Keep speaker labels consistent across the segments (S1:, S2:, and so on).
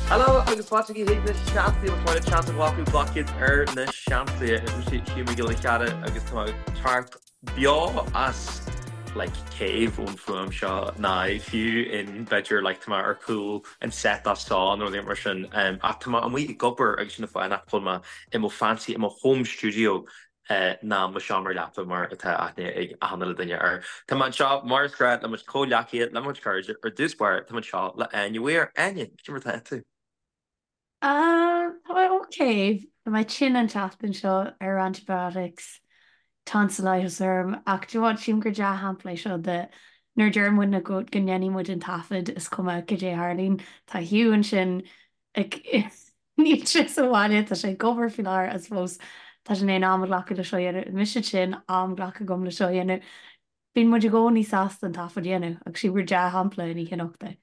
S1: Hello agus fáilte chuig na Seansálaithe más maith leat seans a ghlacadh glac iad ar na Seansálaithe. Is mise Hugh Mac Giolla Chearra agus tá mé ag teacht beo as like cave ón fuaim seo ná fiú in b'fhéidir like tá mé ar chúl an set as seo nó rud mar sin ach tá mé amuigh ag obair agus sin an fáth nach bhfuil mé i mo fancy i mo home studio ná mo sheomra leapa mar atá aithne ag achan uile duine air. Tá mé anseo mar is gnách le mo chuid comhghleacaithe, le mo chuid cairde, ar dtús báire tá mé anseo le Áine Weir. Áine, cad é mar atá tú?
S2: Tá mé ok. Tá mé tinn an tseachtain seo ar antibiotics, tonsillitis orm ach do you know what, sílim gur dea-shampla é seo de nuair a deir muidne go ndéanfaidh muid an taifead is cuma cad é a tharlaíonn. Tá Hugh ansin ag Níl sé sa bhaile, tá sé ag obair faoi láthair I suppose tá sé in ann am a ghlacadh le seo a dhéanamh. Mise tinn, am glactha agam le seo a dhéanamh. Bíonn muid i gcónaí sásta an taifead a dhéanamh agus sílim gur dea-shampla an oíche anocht é.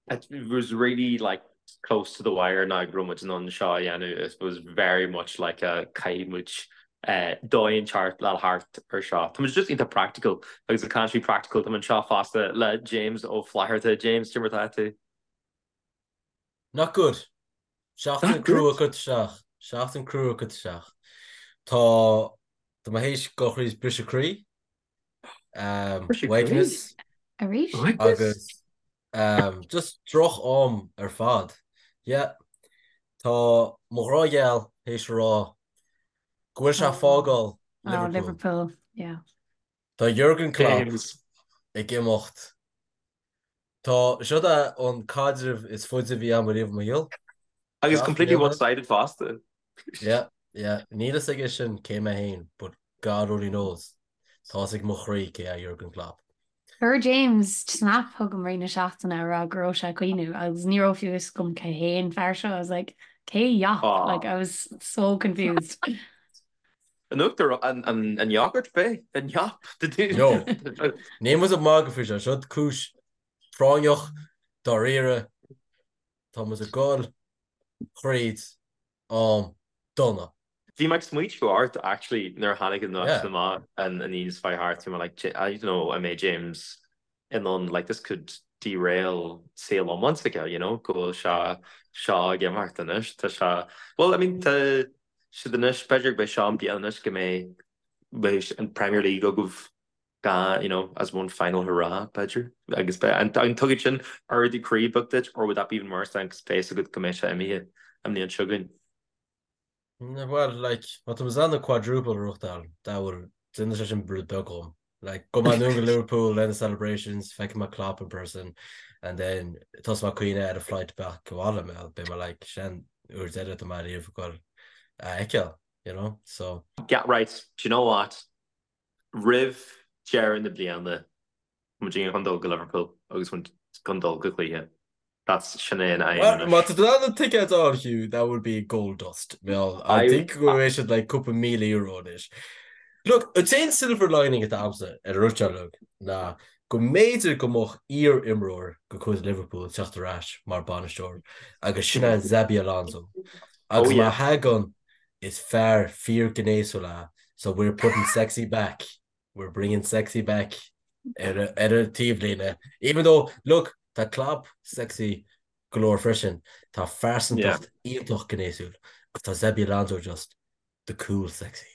S1: It was really like close to the wire now go raibh muid in ann seo a dhéanamh. It was very much like a caithfidh muid dóigh inteacht le thart ar seo. Tá muid just iontach practical agus ag caint faoi practical tá muid anseo fosta le James Ó Flatharta. James, cad é mar atá tú?
S3: Not good. Seachtain crua curtha isteach. Seachtain crua curtha isteach. Tá tá mé théis dul thríd briseadh croí. Uaigneas.
S2: Arís?
S3: Agus just droch am ar fad. Yeah. Tá mo ghrá gheal théis a rá go bhfuil sé ag fágáil
S2: Liverpool. Oh, Liverpool. Yeah.
S3: Tá Jurgen Klopp ag imeacht Tá, seo é an caidreamh is faide a bhí agam ariamh i mo shaol.
S1: Agus completely one-sided fosta.
S3: Yeah, yeah. Níl fhios aige sin cé mé féin, but God only knows. Tá fhios ag mo chroí cé é Jurgen Klopp.
S2: Chuir James snap chugam i rith na seachtaine a rá go raibh sé ag caoineadh agus ní raibh fiú fhios agam cé hé an fear seo. I was like, cé Jop? Like, I was so confused.
S1: An uachtar, an yogurt b'é? An Jop?
S3: No. Níl muid ag magadh faoi seo. Seo cúis phráinneach, dáiríre. Tá muid ag dul thríd am dona.
S1: Bhí mé ag smaointiú ort actually nuair a tháinig an nuacht amach an Aoine seo thart, bhí mé like I don't know an mbeidh James in ann like this could derail saol iomlán s'aige, you know, go bhfuil sé seo ag imeacht anois, tá sé, well I mean tá siad anois, b'fhéidir go mbeidh seo an bliain anois go mbeidh beidh an Premier League agaibh gan, you know, as one final hurrah, b'fhéidir, agus beidh, an an dtugann sin ardú croí beag duit or would that be even worse then 'cause beidh a fhios agat go mbeidh sé imithe an mbliain seo chugainn?
S3: Bhuel, like, má tá muid in ann an quadruple a ghnóthachtáil, that will, déanfaidh sé sin rud beag dhom. Like, gabhfaidh mé anonn go Liverpool le na celebrations, feicfidh mé Klopp in person, and then tosóidh mé ag caoineadh ar an flight back abhaile, mé, beidh mé like, sin uair deireadh atá mé ariamh ag dul a fheiceáil, you know, so.
S1: Yeah, right, do you know what? Roimh deireadh na bliana, Muid chun dul go Liverpool agus muid chun dul go cluiche. That's sin é an aidhm
S3: anois. Má tá tú in ann na ticéid a fháil, Hugh, that would be gold dust. Well, I think go bhfuil siad like cúpla €1,000 anois. Look, an t-aon silver lining atá agamsa ar an rud seo uilig ná go mb'fhéidir go mbeadh iar-imreoir de chuid Liverpool ag teacht ar ais mar bainisteoir agus sin é Xabi Alonso. Agus má thagann, is fear fíorghnéasúil é so we're putting sexy back. We're bringing sexy back ar ar an taobhlíne. Even though, look, tá Klopp sexy go leor freisin, tá phearsantacht iontach gnéasúil agus tá Xabi Alonso just the cool sexy.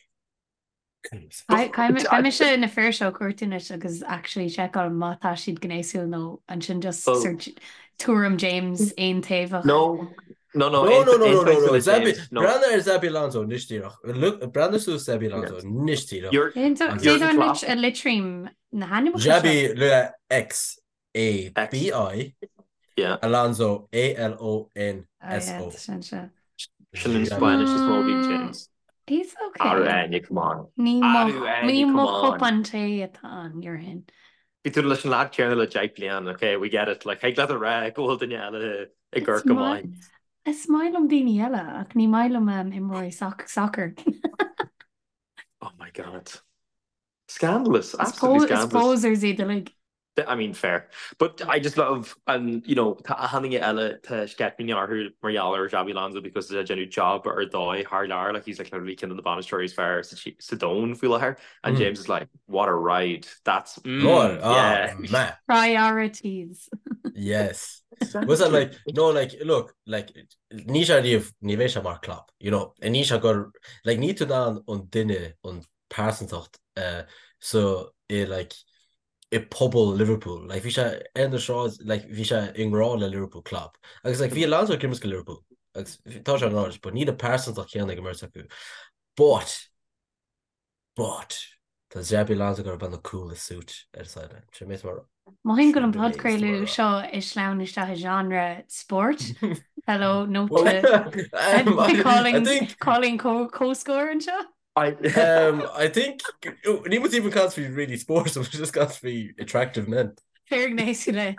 S2: Caithfidh mise na fir seo a chuartú anois agus actually seiceáil má tá siad gnéasúil nó ansin just sort tuairim James aontaobhach.
S1: No,
S3: No, no, no, no, no, no, no, Xabi, breathnaigh ar Xabi Alonso anois díreach. Look, breathnaigh suas Xabi Alonso anois díreach.
S2: Cé anois a litrím na hainmneacha
S3: seo? Xabi le X A B I, Alonso A L O N S O.
S1: Sin an Spanish is mó bhí James.
S2: He's okay.
S1: Arú Áine, come on.
S2: Ní mo chupán tae atá ann, déarfainn.
S1: Bhí tú leis an leaid céanna le 10 bliain, ok, we get it, like, thig leat a rá go bhfuil duine eile ag amharc go maith.
S2: Is maith liom daoine eile ach ní maith liom imreoirí sacair.
S1: Oh my God. Scandalous, absolutely scandalous.
S2: Is posers iad uilig.
S1: I mean, fair. But I just love, and you know, tá achan duine eile, tá sceitimíní orthu mar gheall ar Xabi Alonso because tá sé ag déanamh job ar dóigh thar lear, like he's like literally ceann de na bainisteoirí is fearr sa domhan faoi láthair. And James is like, what a ride, that's, mm,
S3: Lord,
S1: yeah.
S3: ah, man.
S2: Priorities.
S3: Yes. Was that like, no, like, look, like, ní sé riamh, ní bheidh sé mar Klopp, you know, ní sé gur, like, ní tú in ann an duine, an pearsantacht, uh, so, i, like, i pobal Liverpool, like, bhí sé ar na sráid, like, bhí sé i ngrá le Liverpool Klopp, agus, like, bhí Alonso ag imirt do Liverpool, agus tá sé an ráid, but níl an pearsantacht chéanna ag an mbeirt acu. But, But, tá Xabi Alonso ag iarraidh na coolest suit ar an sideline. Sin mé mar.
S2: Mothaím go bhfuil an podchraoladh seo ag sleamhnú isteach i genre spóirt. Hello, note to calling calling comhscór anseo.
S3: I um, I think ní muid even caint faoi really sports, we're just caint faoi attractive men.
S2: Fair gnéasúla.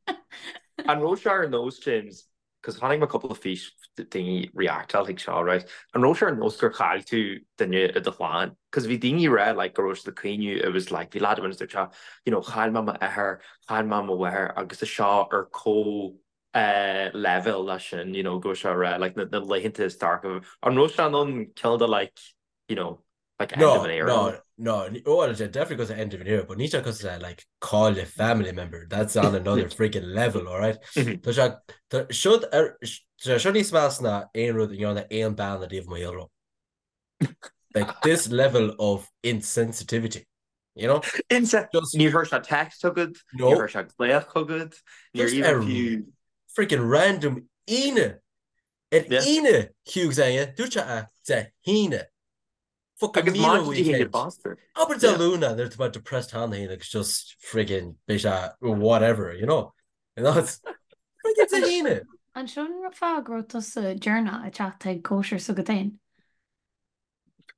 S1: An raibh sé ar nós James 'cause chonaic mé cúpla fís daoine reactáil chuig seo right an raibh sé ar nós gur chaill tú duine i do chlann 'cause bhí daoine ag rá like go raibh siad ag caoineadh it was like bhí lad amháin dúirt sé you know chaill mé m'athair chaill mé mo mháthair agus tá seo ar comh eh leibhéal leis sin you know go raibh sé ag rá like na na laethanta is dorcha an raibh sé in ann cineál de like you know
S3: like end of an era. No, no, no, well, it's definitely because of end of an era, but ní sé because of like call a family member. That's on another freaking level, all right? Mm-hmm. Tá sé tá seo ar tá seo níos measa ná aon rud a ndearna aon bean ariamh i mo shaol. Like this level of insensitivity. You know?
S1: Inse Just níor chuir sé text chugat, no. níor chuir sé glaoch chugat, níor
S3: Just ar freaking random Aoine Ar Aoine, Hugh Zenge, dúirt sé a Dé hAoine. Fucking
S1: Agus
S3: míle
S1: maidin Dé hAoine
S3: weekend.
S1: bastard.
S3: Abair Dé Luain nuair atá mé depressed cheana féin agus just friggin beidh sé whatever, you know? And that's friggin Dé hAoine.
S2: An sin an fáth go raibh tusa deireanach ag teacht chuig cóisir s'agat féin?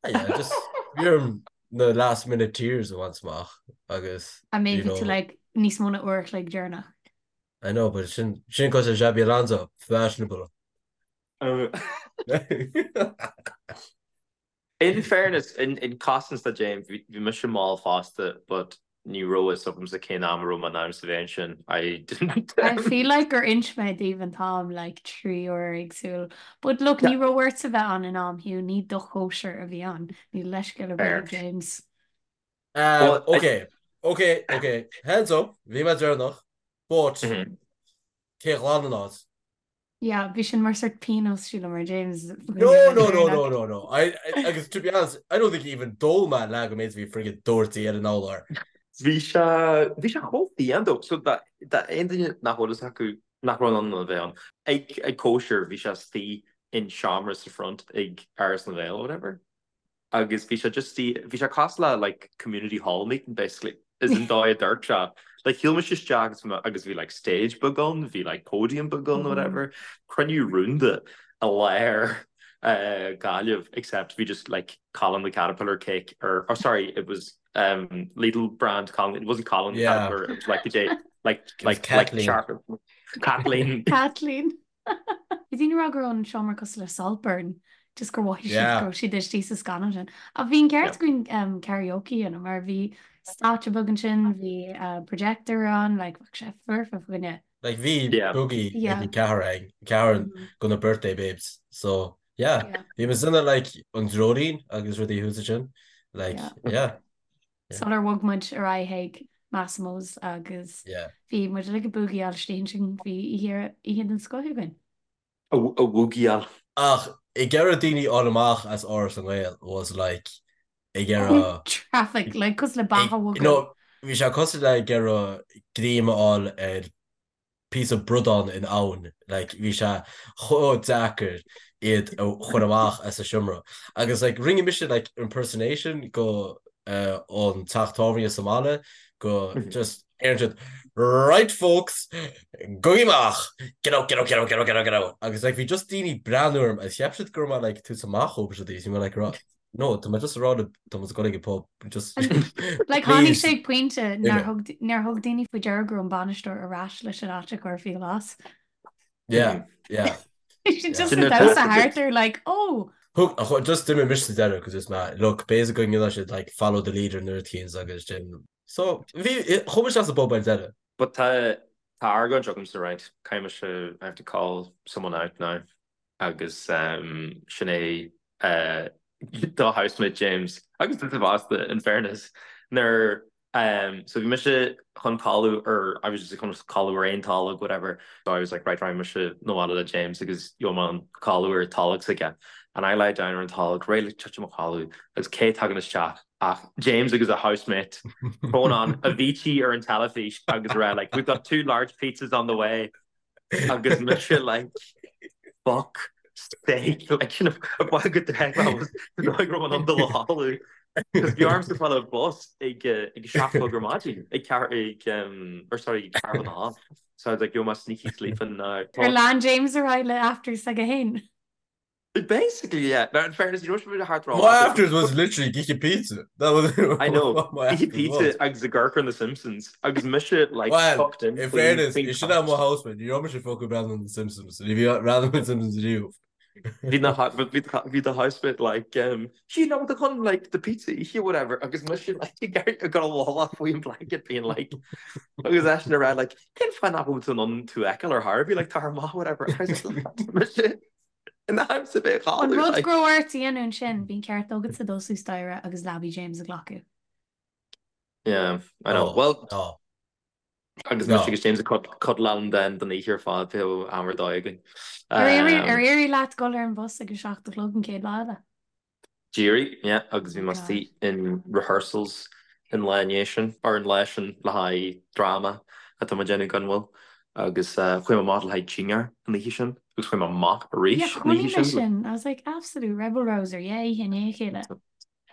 S3: Ah, yeah, just bhí orm na last minute tears a bhaint amach agus,
S2: I mean
S3: you
S2: bhí tú
S3: know,
S2: like níos mó ná uair a chloig deireanach.
S3: I know, but sin sin cosúil le Xabi Alonso, fashionable.
S1: In fairness, in in cosaint do James, bhí bhí mise mall fosta, but ní raibh fhios agamsa cén am a raibh mé in ainm is a bheith ansin. I didn't.
S2: I feel like gur inis mé daoibh an t-am like 3 uair éagsúil. But look, ní raibh ortsa bheith ann in am, Hugh, ní do chóisir a bhí ann. Níl leithscéal ar bith
S1: Fair.
S2: ag James.
S3: Um,
S1: Well, I,
S3: okay, okay, okay, hands up, bhí mé deireanach, but
S1: Mhm.
S3: cé a ghlan an áit?
S2: Yeah, bhí sin mar sort pionós sílim ar James
S3: No, no, no, no, no, no. I, I, agus to be honest, I don't think even d'ól mé leath den méid a bhí friggin doirte ar an urlár.
S1: Bhí sé, bhí sé chomh fiáin though. So dá, dá aon duine nach bhfuil fhios acu nach raibh in ann a bheith ann. Ag, ag cóisir, bhí sé istigh in seomra sa front ag Áras na nGael or whatever. agus bhí sé just bhí sé cosúil le like community hall meeting basically is an dóigh a dúirt sé like shiúil mise isteach agus bhí agus bhí like stage beag ann bhí like podium beag ann whatever cruinniú rúnda i lár uh, Gaillimh except bhí just like Colin the Caterpillar cake or oh sorry it was um Lidl brand Colin it wasn't Colin the
S3: Yeah.
S1: Caterpillar it was like the day like
S3: It was
S1: like like
S3: Kathleen.
S1: sharp Kathleen
S2: Kathleen. Bhí daoine ag rá go raibh an seomra cosúil le Saltburn, just gur mhothaigh siad
S3: Yeah.
S2: go raibh siad istigh sa scannán sin. Ach bhí an ceart
S1: Yeah.
S2: againn um, karaoke a dhéanamh mar bhí stáitse beag ansin, bhí uh, projector ann, like, bheadh sé foirfe fá choinne.
S3: Like bhí
S1: Yeah.
S3: boogie ag
S2: Yeah.
S3: an ceathrar ag ceathrar
S2: Mm.
S3: go na birthday babes. So yeah,
S2: Yeah.
S3: bhí muid ina like an dreoilín agus rudaí thuas ansin. Like
S2: Yeah.
S3: yeah. Yeah.
S2: Sular bhog muid ar aghaidh chuig Massimo's agus
S3: Yeah.
S2: bhí muid uilig ag búgaíáil istigh ansin, bhí oíche oíche den scoth againn.
S1: A bhúgaíáil.
S3: Ach ag iarraidh daoine a fháil amach as Áras na nGael was like ag iarraidh
S2: Traffic, like cosúil le beach a bhogadh.
S3: No, bhí sé cosúil le ag iarraidh greim a fháil ar píosa bradán in abhainn, like bhí sé chomh deacair iad a chur amach as an seomra. Agus like rinne mise like impersonation go uh, an teach tábhairne sa mbaile go just ar siad right folks gabhaigí amach get out get out get out get out get out get out agus like bhí just daoine breathnú orm agus cheap siad go raibh mé like tús amach ó siad bhí mé like rá No, tá mé just ag rá tá muid ag dul ag an pub just
S2: Like tháinig
S3: please
S2: sé ag pointe nár
S3: Imigh.
S2: thug nár thug daoine faoi deara go raibh an bainisteoir ar ais leis an áit a chur faoi ghlas.
S3: Yeah, yeah.
S2: Bhí siad just
S1: Sin
S2: ag
S1: na
S2: damhsa
S1: taifid.
S2: thart ar like oh!
S3: Thug, ach just d'imigh mise sa deireadh cos is mé, look, basically go ndéanann siad like follow the leader nuair a tchíonn agus sin. So, bhí, chuaigh mise as an bpub ar deireadh.
S1: But tá tá argóint agamsa right, caithfidh mise I have to call someone out now. agus sin é do housemate James agus duit fosta in fairness nuair So bhí mise chun codladh ar, I was just chun codladh ar aon tolg, whatever. So I was like, right, raghaidh mise 'na bhaile le James agus gheobhaidh mé an codladh ar tolg s'aige. And I lie down ar an tolg, réidh le titim a chodladh agus cé tagann isteach ach James agus a housemate throwing on Avicii ar an teilifís agus a rá like, we've got two large pizzas on the way. Agus mise like, fuck sake, like, you know, go dóigh raibh an dul a chodladh. Cos bhí ormsa fáil ar bus ag ag a 7 a chlog ar maidin, ag ceathair ag um, or sorry, ag ceathrú chun a hocht. So I was like, yo, my sneaky sleeping now.
S2: Ar lean James ar aghaidh le afters s'aige féin?
S1: Basically, yeah. Now, in fairness, you know what thart
S3: My afters was literally ag ithe pizza. That was
S1: I know.
S3: what my
S1: Ithe
S3: afters
S1: pizza
S3: was.
S1: agus ag amharc ar The Simpsons agus mise like
S3: Well,
S1: tucked in
S3: in
S1: faoin
S3: fairness,
S1: faoin
S3: sin é mo
S1: couch.
S3: housemate. Ní raibh mise fucking breathnú ar The Simpsons. Ní bhí breathnú ar The Simpsons riamh.
S1: Bhí na bhí bhí the housemate like um, you know the chun like the pizza ithe whatever agus mise like ag ag dul i bhfolach faoin blanket being like agus eisean ag rá like cén fáth nach bhfuil tú in ann tú a fheiceáil ar chor ar bith like tá amach whatever I was like mise in am sa bheith
S2: An
S1: chodladh
S2: rud
S1: like
S2: go raibh ort a dhéanamh ansin, bhí an ceart agatsa dul suas staighre agus leabaidh James a ghlacadh.
S1: Yeah, I know.
S3: No,
S1: Well,
S3: no,
S1: agus mise
S3: no.
S1: agus James ag cuddláil then don oíche ar fad bhí am ar dóigh againn.
S2: Ar éirigh ar éirigh leat dul ar an bhus ag a 7 a chlog an chéad lá eile?
S1: D'éirigh, yeah, agus bhí
S2: Oh
S1: mé
S2: God.
S1: istigh in rehearsals an lá i ndiaidh sin, or an lá sin le haghaidh dráma atá mé ag déanamh gan mhoill, agus chuaigh mé amach le haghaidh dinnéar an oíche sin, agus chuaigh mé amach
S2: Yeah,
S1: arís an
S2: chonaic
S1: oíche
S2: mé
S1: sin.
S2: sin. I was like, absolute rebel rouser, yeah, oíche i ndiaidh a chéile.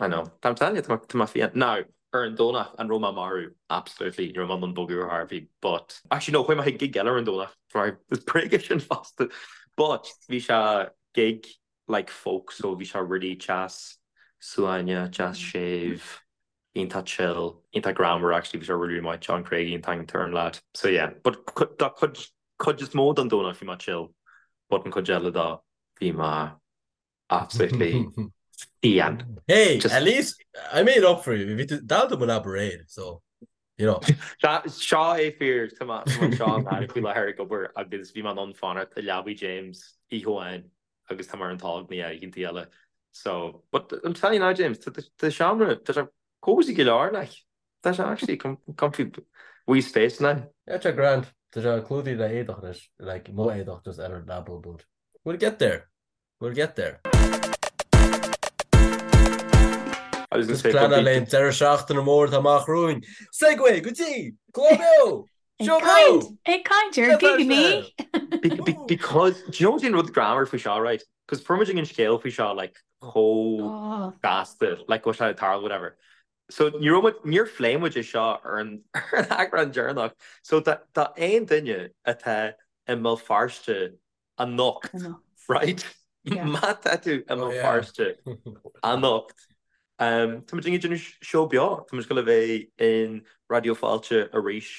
S1: I know. I'm telling you, tá mé fiáin. Now, ar an Domhnach, an raibh mé marbh? Absolutely, ní raibh mé in ann bogadh ar chor ar bith, but, actually no, chuaigh mé chuig gig eile ar an Domhnach, sorry, is bréag é sin fosta, but bhí sé gig like folk so bhí sé really deas suaimhneach, deas séimh, iontach chill, iontach greannmhar actually, bhí sé really really maith, John Craigie an t-ainm atá ar an lad. So yeah, but dá cuid, cuid is mó den Domhnach bhí mé chill, but an cuid eile dó bhí mé absolutely fiáin.
S3: Hey,
S1: Just
S3: at least I made up for you. Bhí tú dall do mo leaba aréir, so you know.
S1: Seo é fíor, tá mé anseo i nGaillimh faoi láthair ag obair agus bhí mé in ann fanacht i leabaidh James oíche amháin agus tá mé ar an tolg na oícheantaí eile. So, but I'm telling you now James, tá tá seomra, tá sé cozy go leor like. Tá sé actually comfy wee space now.
S3: Yeah, tá grand. Tá sé clúdaithe le éadach anois, like mo éadach just ar an leaba but we'll get there. We'll get there.
S1: I was gonna
S3: Just
S1: say, but
S3: pleanáil
S1: bhí
S3: le deireadh seachtaine mór atá amach romhainn. Segue go dtí Clár Beo!
S2: Ag
S3: Seó
S2: caint,
S3: Beo!
S2: ag caint ar
S3: Bhéal Feirste!
S2: gigeannaí!
S1: Be be because do you know what's an rud greannmhar faoi seo right? Because fuair muid an scéal faoi seo like chomh
S2: Oh,
S1: gasta like go bhfuil sé ag tarlú whatever. So ní raibh muid níor phléigh muid é seo ar an ar an eagrán deireanach. So tá tá aon duine atá i mBéal Feirste anocht
S2: anocht.
S1: right?
S2: Yeah.
S1: Má tá tú i
S3: Oh
S1: mBéal
S3: yeah.
S1: Feirste anocht tá muid ag déanamh seó beo, tá muid ag gabháil a bheith in Raidió Fáilte arís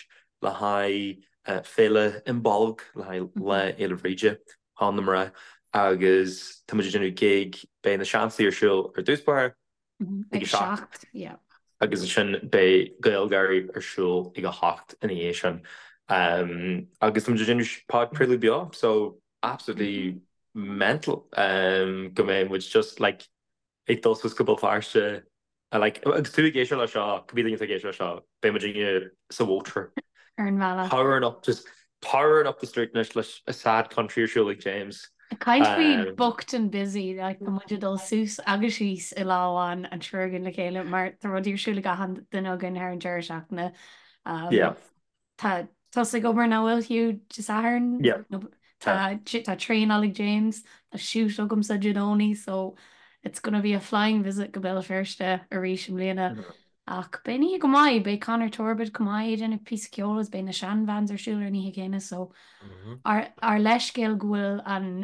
S1: le haghaidh Féile Imbolg, le haghaidh Lá Fhéile Bhríde, Sheán na Mná, agus tá muid ag déanamh gig, beidh na Siansaí ar siúl ar dtús báire, ag
S2: Ag
S1: a 7
S2: 7, yeah.
S1: agus ansin beidh GaelGÁIRÍ ar siúl ag a 8 ina dhiaidh sin. Agus tá muid ag déanamh podchraoladh beo, so absolutely mental go mbeidh muid just like ag dul suas go Béal Feirste like agus tú ag éisteacht le seo, cibé duine atá ag éisteacht le seo, beidh muid sa mhótar.
S2: Ar an bhealach.
S1: Powering up just powering up the street anois leis a sad country ar siúl ag James.
S2: Ag caint faoi booked and busy, like tá muid ag dul suas agus síos i lá amháin an triúr againn le chéile mar tá rudaí ar siúl ag achan duine againn thar an deireadh seachtaine. Um,
S1: Yeah.
S2: Tá tusa ag obair nach bhfuil Hugh Dé Sathairn?
S1: Yeah.
S2: No, tá tá traenáil ag James, tá shoot agamsa Dé Domhnaigh so it's gonna be a flying visit go Béal Feirste arís i mbliana. Ach beidh an oíche go maith, beidh Conor Torbett chomh maith ag déanamh píosa ceoil agus beidh na Shan Vans ar siúl ar an oíche chéanna so ár ár leithscéal go bhfuil an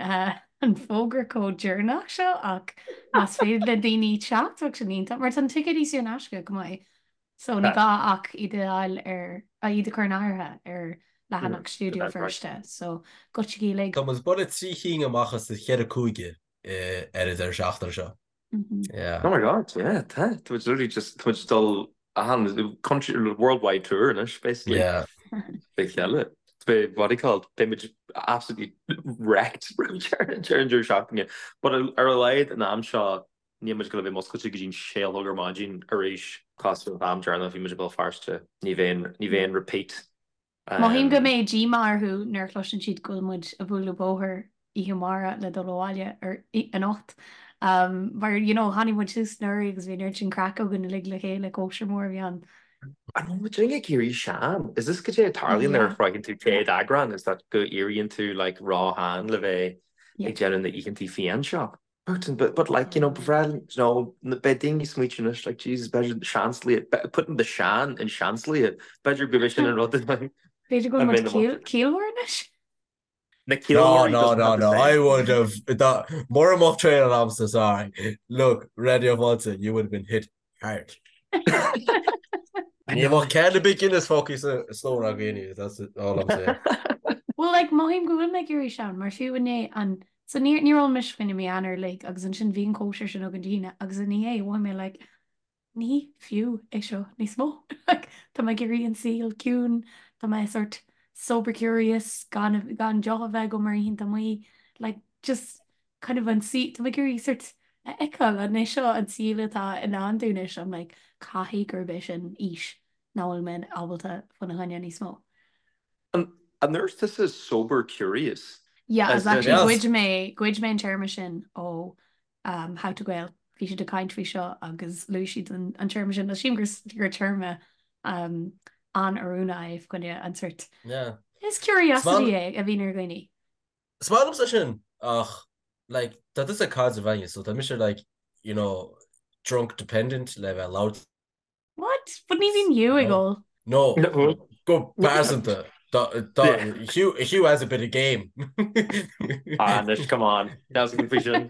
S2: an fógra chomh deireanach seo ach más féidir le daoine teacht bheadh sin iontach mar tá na ticéidí saor in aisce chomh maith so ní gá ach iad a fháil ar iad a chur in áirithe ar leathanach Stiúideo Feirste so goitsigí uilig.
S3: Tá muid buille 3 chinn amach as na cheithre cúige ar an deireadh seachtaine seo. Yeah.
S1: Oh my God, yeah, tá. Tá muid literally just, tá muid dul achan country, worldwide tour anois, basically.
S3: Yeah.
S1: Fé cheile. Beidh, what do you call it, beidh muid absolutely wrecked roimh deireadh an deireadh seachtaine. But ar a laghad an am seo, Níl muid ag goil a bheith muscailte go dtí'n sé a chlog ar maidin arís. Cosúil leis an am deireanach bhí muid i Béal Feirste. Ní bheidh ní bheidh aon repeat.
S2: Mothaím go mbeidh díomá orthu nuair a chloiseann siad go bhfuil muid ag bualadh bóthair oíche amárach le dul abhaile ar anocht. Mar you know tháinig muid suas anuraidh agus bhí an oiread sin craic againn uilig le chéile, cóisir mór a bhí ann.
S1: An bhfuil muid ag éirí sean? Is this goidé a tarlaíonn nuair a shroicheann tú 100 eagrán is that go éiríonn tú like ró-shean le bheith ag déanamh na oícheantaí fiáin seo? But, but, but like, you know, ba bhreá, you know, beidh daoine ag smaoitiú anois, like, Jesus, b'fhéidir seanslaithe, putting the sean in seanslaithe, b'fhéidir go bhfuil sin an rud
S2: B'fhéidir go bhfuil muid ciallmhar anois?
S1: Na ciallmhairí
S3: No, no, no, no, I would have, mura mbeadh traenáil agamsa, sorry. Look, Raidió Fáilte, you would have been hit hard. Ní bheadh ceann ar bith Guinness fágtha sa stór againn, that's all I'm saying.
S2: Well, like, mothaím go bhfuil mé ag éirí sean, mar fiú inné an, so níor, níor ól mise fá choinne mí Eanáir uilig agus ansin bhí an cóisir sin againn Dé hAoine agus inné mhothaigh mé like, ní fiú é seo níos mó. Like, tá mé ag iarraidh an saol ciúin, tá mé sort sober curious, gan, gan deoch a bheith agam ar oícheanta amuigh, like, just kind of an saol, tá mé ag iarraidh sort a fheiceáil an é seo an saol atá i ndán dúinn anois, I'm like, caithfidh gurb é sin aois nach bhfuil mé ábalta faoina choinne níos mó.
S1: An ndúirt tusa sober curious?
S2: Yeah, as actually ghoid mé, ghoid mé an téarma sin ó um, How to Gael. Bhí siad ag caint faoi seo agus luaigh siad an, an téarma sin. Sílim gur, gur téarma um, an-oiriúnach é fá choinne an sort.
S3: Yeah.
S2: Is curiosity é a bhíonn ar dhaoine.
S3: Is maith liomsa sin ach like tá tusa ag caidreamh againne so tá mise like you know drunk dependent le bheith labhairt.
S2: What? But ní bhíonn Hugh ag ól.
S3: No, go pearsanta. Hugh, Hugh has a bit of game.
S1: Ah, anois, come on. That's a faoi sin.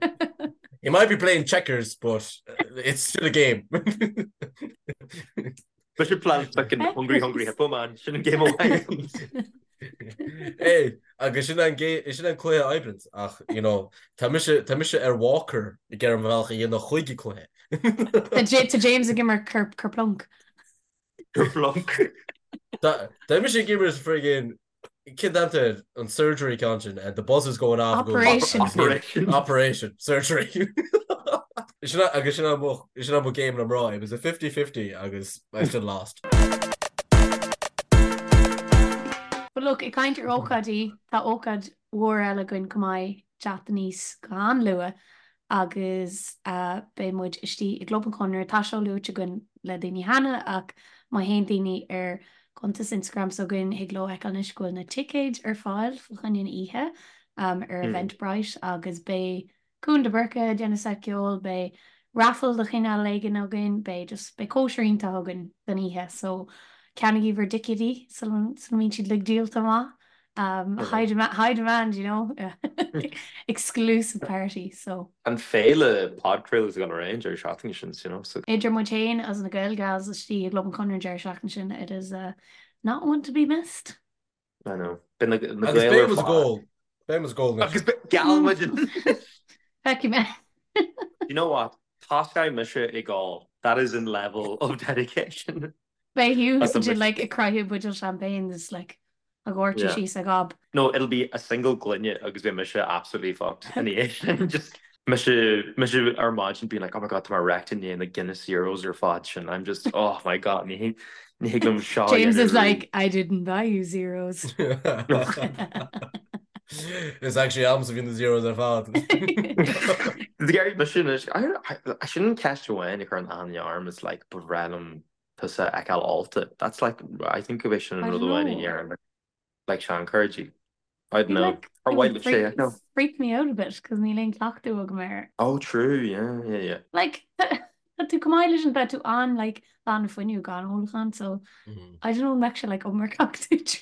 S3: He might be playing checkers, but it's still a game.
S1: Mise plan fucking hungry hungry hippo man, sin an game amháin.
S3: Hey, agus sin an sin an cluiche oibreann ach you know, tá mise tá mise ar walker ag iarraidh mo bhealach a dhéanamh chuig an cluiche.
S2: Tá James ag imirt Kerplunk.
S1: Kerplunk.
S3: Tá mise ag imirt friggin Cén t-ainm air an surgery ceann sin and the buzzer's going off.
S2: Operation.
S3: Operation. Operation. Surgery. Sin agus sin mo sin mo game le mná. It was a 50-50 agus I still lost.
S2: But look, ag caint ar ócáidí, tá ócáid mhór eile againn chomh maith teacht aníos go han-luath agus beidh muid istigh i gClub an Chonradh. Tá seo luaite againn le daoine cheana ach má théann daoine ar cuntas Instagram s'againn thig leo fheiceáil anois go bhfuil na ticéid ar fáil fá choinne an oíche ar Eventbrite agus beidh Cuan de Búrca ag déanamh seit ceoil, beidh raffle de chineál éigin againn, beidh just, beidh cóisir iontach againn don oíche so ceannaigí bhur dticéidí sula mbíonn siad uilig díolta amach. Um, high demand, high demand, you know, exclusive party, so.
S1: An féile podchraoladh is gonna range ar seachtain sin, you know, so.
S2: Idir muid féin agus na Gael Gals istigh i gClub an Chonradh an deireadh seachtaine sin, it is uh, not one to be missed.
S1: I know. Beidh na, na
S3: Agus
S1: Gaeil
S3: beidh
S1: ar
S3: muid ag
S1: fad.
S3: ól. Beidh muid ag ól anois.
S1: Agus geall muid.
S2: Feicfidh mé.
S1: You know what? Tosóidh mise ag ól. That is an level of dedication.
S2: Beidh Hugh As a like ag croitheadh buidéal champagne is like ag dóirteadh Yeah. síos a gob.
S1: No, it'll be a single gloine agus beidh mise absolutely fucked ina dhiaidh sin. Just mise mise ar maidin being like, oh my god, tá mé wrecked i ndiaidh na Guinness Zeros ar fad sin. I'm just, oh my god, ní ní thig liom seo a
S2: James
S1: dhéanamh
S2: is
S1: arís.
S2: like, I didn't buy you zeros.
S3: Is actually agamsa a bhí na zeros ar fad.
S1: D'éirigh mise anois, I sin an ceist amháin a chuireann aithne orm is like, ba bhreá liom tusa a fheiceáil ólta. That's like, I think go bhféadfadh sin an
S2: I
S1: rud
S2: don't
S1: amháin a
S2: know.
S1: dhéarfainn like seanchairde. I don't
S2: It
S1: know.
S2: like
S1: Ar
S2: it
S1: mhaith
S2: would
S1: libh sé
S2: freak
S1: a fheiceáil?
S2: freak me out a bit cos níl aon cleachtadh agam air.
S1: Oh true, yeah, yeah, yeah.
S2: Like tá tú chomh maith leis an tá tú an like lán fuinneamh gan ólachán so I don't know an mbeadh sé like iomarcach duit.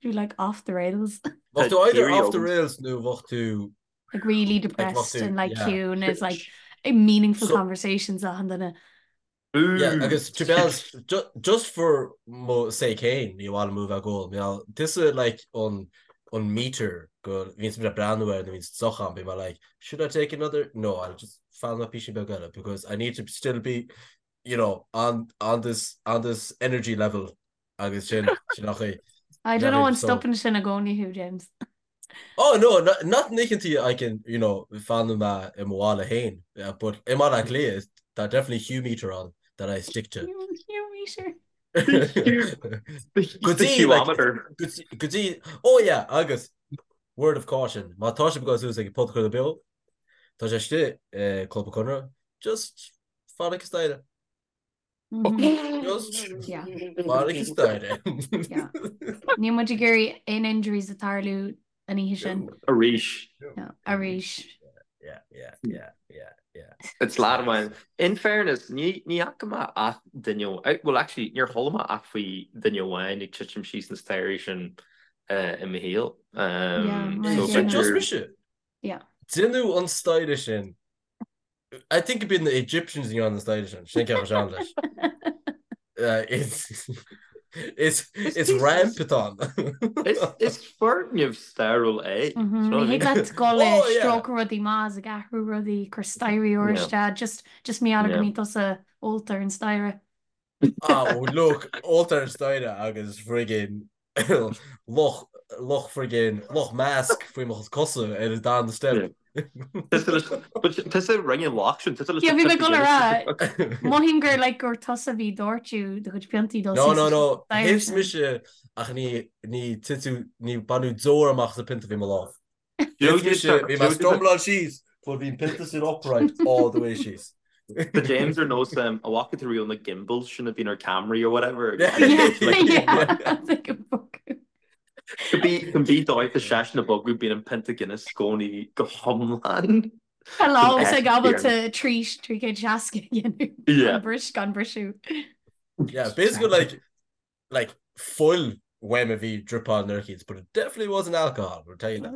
S2: You're like off the rails.
S3: Bheadh
S1: Tá
S3: tú either
S1: theory
S3: off the
S1: agam.
S3: rails nó bheadh tú
S2: Like really
S3: like bheadh
S2: depressed
S3: tú
S2: and like
S3: yeah.
S2: ciúin is like meaningful
S3: So
S2: conversations achan duine.
S3: Yeah,
S1: Ooh.
S3: agus to be honest, ju just for mo sake féin, ní mhaith liom a bheith ag ól, mar tusa like an an meter go bhíonns mé ag breathnú air nuair a bhíonns deoch agam, bím like, should I take another? No, I'll just fanfaidh mé píosa beag eile because I need to still be, you know, on on this on this energy level agus sin sin nach é.
S2: I don't know an
S3: So
S2: stopann sin i gcónaí thú, James.
S3: Oh no, not na hoícheantaí I can, you know, fanann mé i mo bhaile féin, but i mBaile Átha Cliath, tá definitely Hugh meter ann that I stick to.
S2: Hugh meter.
S3: Go dtí, like, go dtí, oh yeah, agus word of caution, má tá sibh ag dul suas ag podchraoladh beo, tá sé istigh i Club an Chonradh, just fan ag an staighre. Just fan ag an staighre.
S2: Níl muid ag iarraidh aon injuries a tarlú an oíche sin.
S1: Arís.
S2: Arís.
S3: Yeah, yeah, yeah, yeah, yeah.
S1: It's lad amháin. In fairness, ní ní fhaca mé ach duine, well actually níor chuala mé ach faoi duine amháin ag titim síos na staighrí sin i mo shaol.
S3: So sin just mise.
S2: Yeah.
S3: Déanadh an staighre sin I think it'd been the Egyptians a dhein an staighre sin, sin ceap sean leis. Is is ramp atá ann.
S1: Is foirgneamh stairiúil é.
S2: Ní thig leat dul ag stróiceadh rudaí amach is ag athrú rudaí, cur staighrí úra isteach, just just mar gheall go mbíonn tusa ólta ar an staighre.
S3: Ah, look, ólta ar an staighre agus friggin luch, luch friggin, luch mask faoi mo cosa ar an darna step.
S1: Tusa rinne an loch sin, tusa leis
S2: Yeah, bhí mé ag dul a rá, mothaím gur like gur tusa a bhí ag doirteadh do chuid piontaí dul
S3: No, no, no, thit mise ach ní, ní titeadh, ní baineadh deoir amach as an pionta a bhí i mo lámh. Thit mise, bhí mé ag stumbláil síos, but bhí an pionta sin upright all the way síos.
S1: Tá James ar nós an bhfaca tú riamh na gimbals sin a bhíonn ar cameraí or whatever. Cibé dóigh tá seisean ag bogadh bíonn an pionta Guinness i gcónaí go hiomlán.
S2: Tá lámh ag ábalta 360 a dhéanamh gan briseadh.
S3: Yeah, basically like like fuil uaim a bhí dripáil nuair eicínt, but it definitely wasn't alcohol, we'll tell you that.
S1: An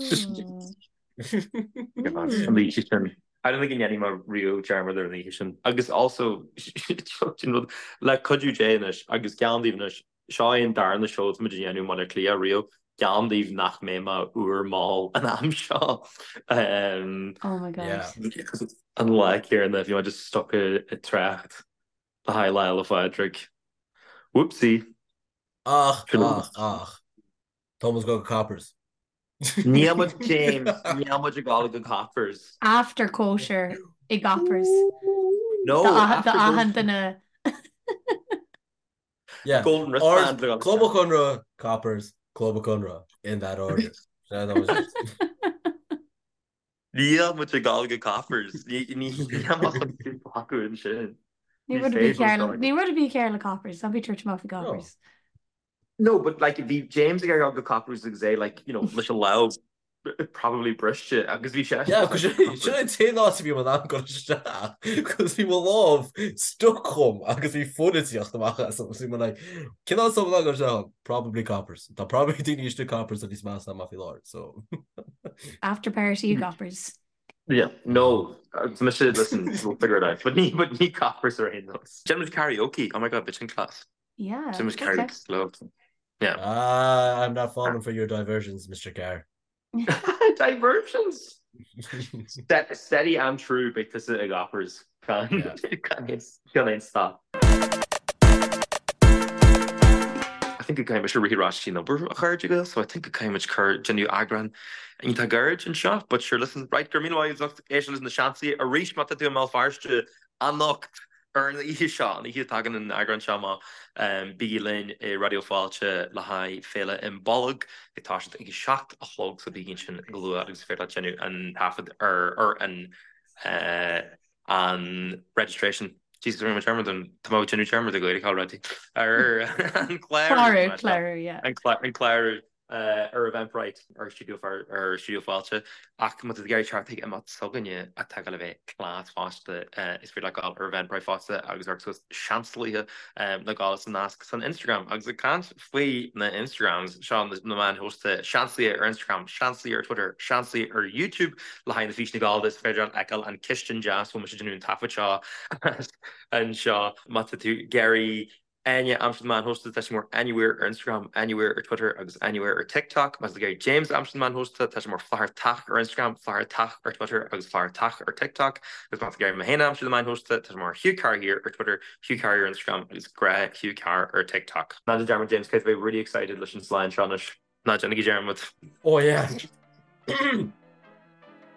S1: oíche sin. I don't think go ndéanfaidh mé riamh dearmad ar an oíche sin. Agus also, sin rud, le cuidiú Dé anois, agus geallaim daoibh anois, seo é an darna seó atá muid a dhéanamh i mBaile Átha Cliath riamh, geallaim daoibh nach mbeidh mé úr mall an am seo.
S2: Oh my God.
S1: An lá céanna, bhí mé just stuck i dtrácht. Le haghaidh Lá 'le Phádraig. Whoopsie!
S3: Ach, ach, ach. Tá muid ag dul go Coppers.
S1: Níl muid, James, níl muid ag dul go Coppers.
S2: After cóisir i gCoppers.
S1: No, after
S2: Do achan duine.
S3: Yeah.
S1: Golden wristband.
S3: Or Club an Chonradh, Coppers, Club an Chonradh, in that order.
S1: Níl muid ag dul go Coppers. Ní amach an acu ansin.
S2: Ní rud ar bith cearr le Coppers, ná bí ag tabhairt amach faoi Coppers.
S1: No, but like bhí James ag dul go Coppers agus é like, you know, leis an lámh probably briste agus bhí sé.
S3: Yeah, cos sin an t-aon áit a bhí mé in ann dul isteach, cos bhí mo lámh stuck chugam agus bhí fuil ag tíocht amach as so bhí mé like, cén áit atá mé in ann dul isteach ann? Probably Coppers. Tá probably daoine istigh Coppers a níos measa ná mé faoi láthair, so.
S2: After party i gCoppers.
S1: Yeah, no, mise, listen, we'll figure it out. But ní, but ní Coppers ar aon nós. Déanfaidh muid karaoke, oh my god, bit sin class.
S2: Yeah.
S1: Déanfaidh muid karaoke slow. Yeah.
S3: Ah, I'm not falling for your diversions, Mr. Carr.
S1: Diversions! Steady and true beidh tusa i gCoppers. Gan aon stop. I think go gcaithfidh mise rith ar ais chuig an obair a chairde Gael so I think go gcaithfidh muid cur déanamh eagrán iontach gairid anseo but sure listen right go raibh míle maith agat as ucht éisteacht leis na Seansálaithe arís má tá tú i mBéal Feirste anocht Ar an oíche seo, an oíche a dtagann an eagrán seo amach, bígí linn i Raidió Fáilte le haghaidh Féile Imbolg ag toiseacht ag a 7 a chlog so bígí ansin go luath agus is féidir leat déanamh an taifead ar ar an an registration. Jesus, rinne mé dearmad an tá mé ag déanamh dearmad ar Ghaeilge already. Ar an
S2: clárú. Clárú, yeah.
S1: An clárú. ar Eventbrite ar Stiúideo ar Stiúideo Fáilte ach má tá tú ag iarraidh teacht chuig imeacht s'againne atá ag dul a bheith class fosta is féidir leat dul ar Eventbrite fosta agus amharc suas Seansalaithe le dul sa nasc san Instagram. Agus ag caint faoi na Instagrams, seo na meáin shóisialta, Seansalaithe ar Instagram, Seansalaithe ar Twitter, Seansalaithe ar YouTube le haghaidh na físeanna Gallda is féidir leat fheiceáil an cistin deas a bhfuil mise ag déanamh an taifead seo anseo má tá tú ag iarraidh Áine a aimsiú ar na meáin shóisialta, tá sí mar Áine Weir ar Instagram, Áine Weir ar Twitter agus Áine Weir ar TikTok. Má tá tú ag iarraidh James a aimsiú ar na meáin shóisialta, tá sé mar Flathartach ar Instagram, Flathartach ar Twitter agus Flathartach ar TikTok. Agus má tá tú ag iarraidh mé féin a aimsiú ar na meáin shóisialta, tá sé mar Hugh Carr Here ar Twitter, Hugh Carr ar Instagram agus Grá Hugh Carr ar TikTok. Ná déan dearmad James, caithfidh tú a bheith really excited leis an slán seo anois. Ná déanaigí dearmad.
S3: Oh yeah!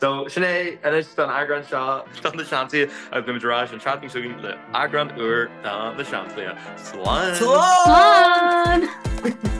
S1: So, sin é anois don eagrán seo de Na Seansálaithe agus beimid ar ais an tseachtain seo chugainn le eagrán úr de Na Seansálaithe. Slán!
S3: Slán!
S2: Slán!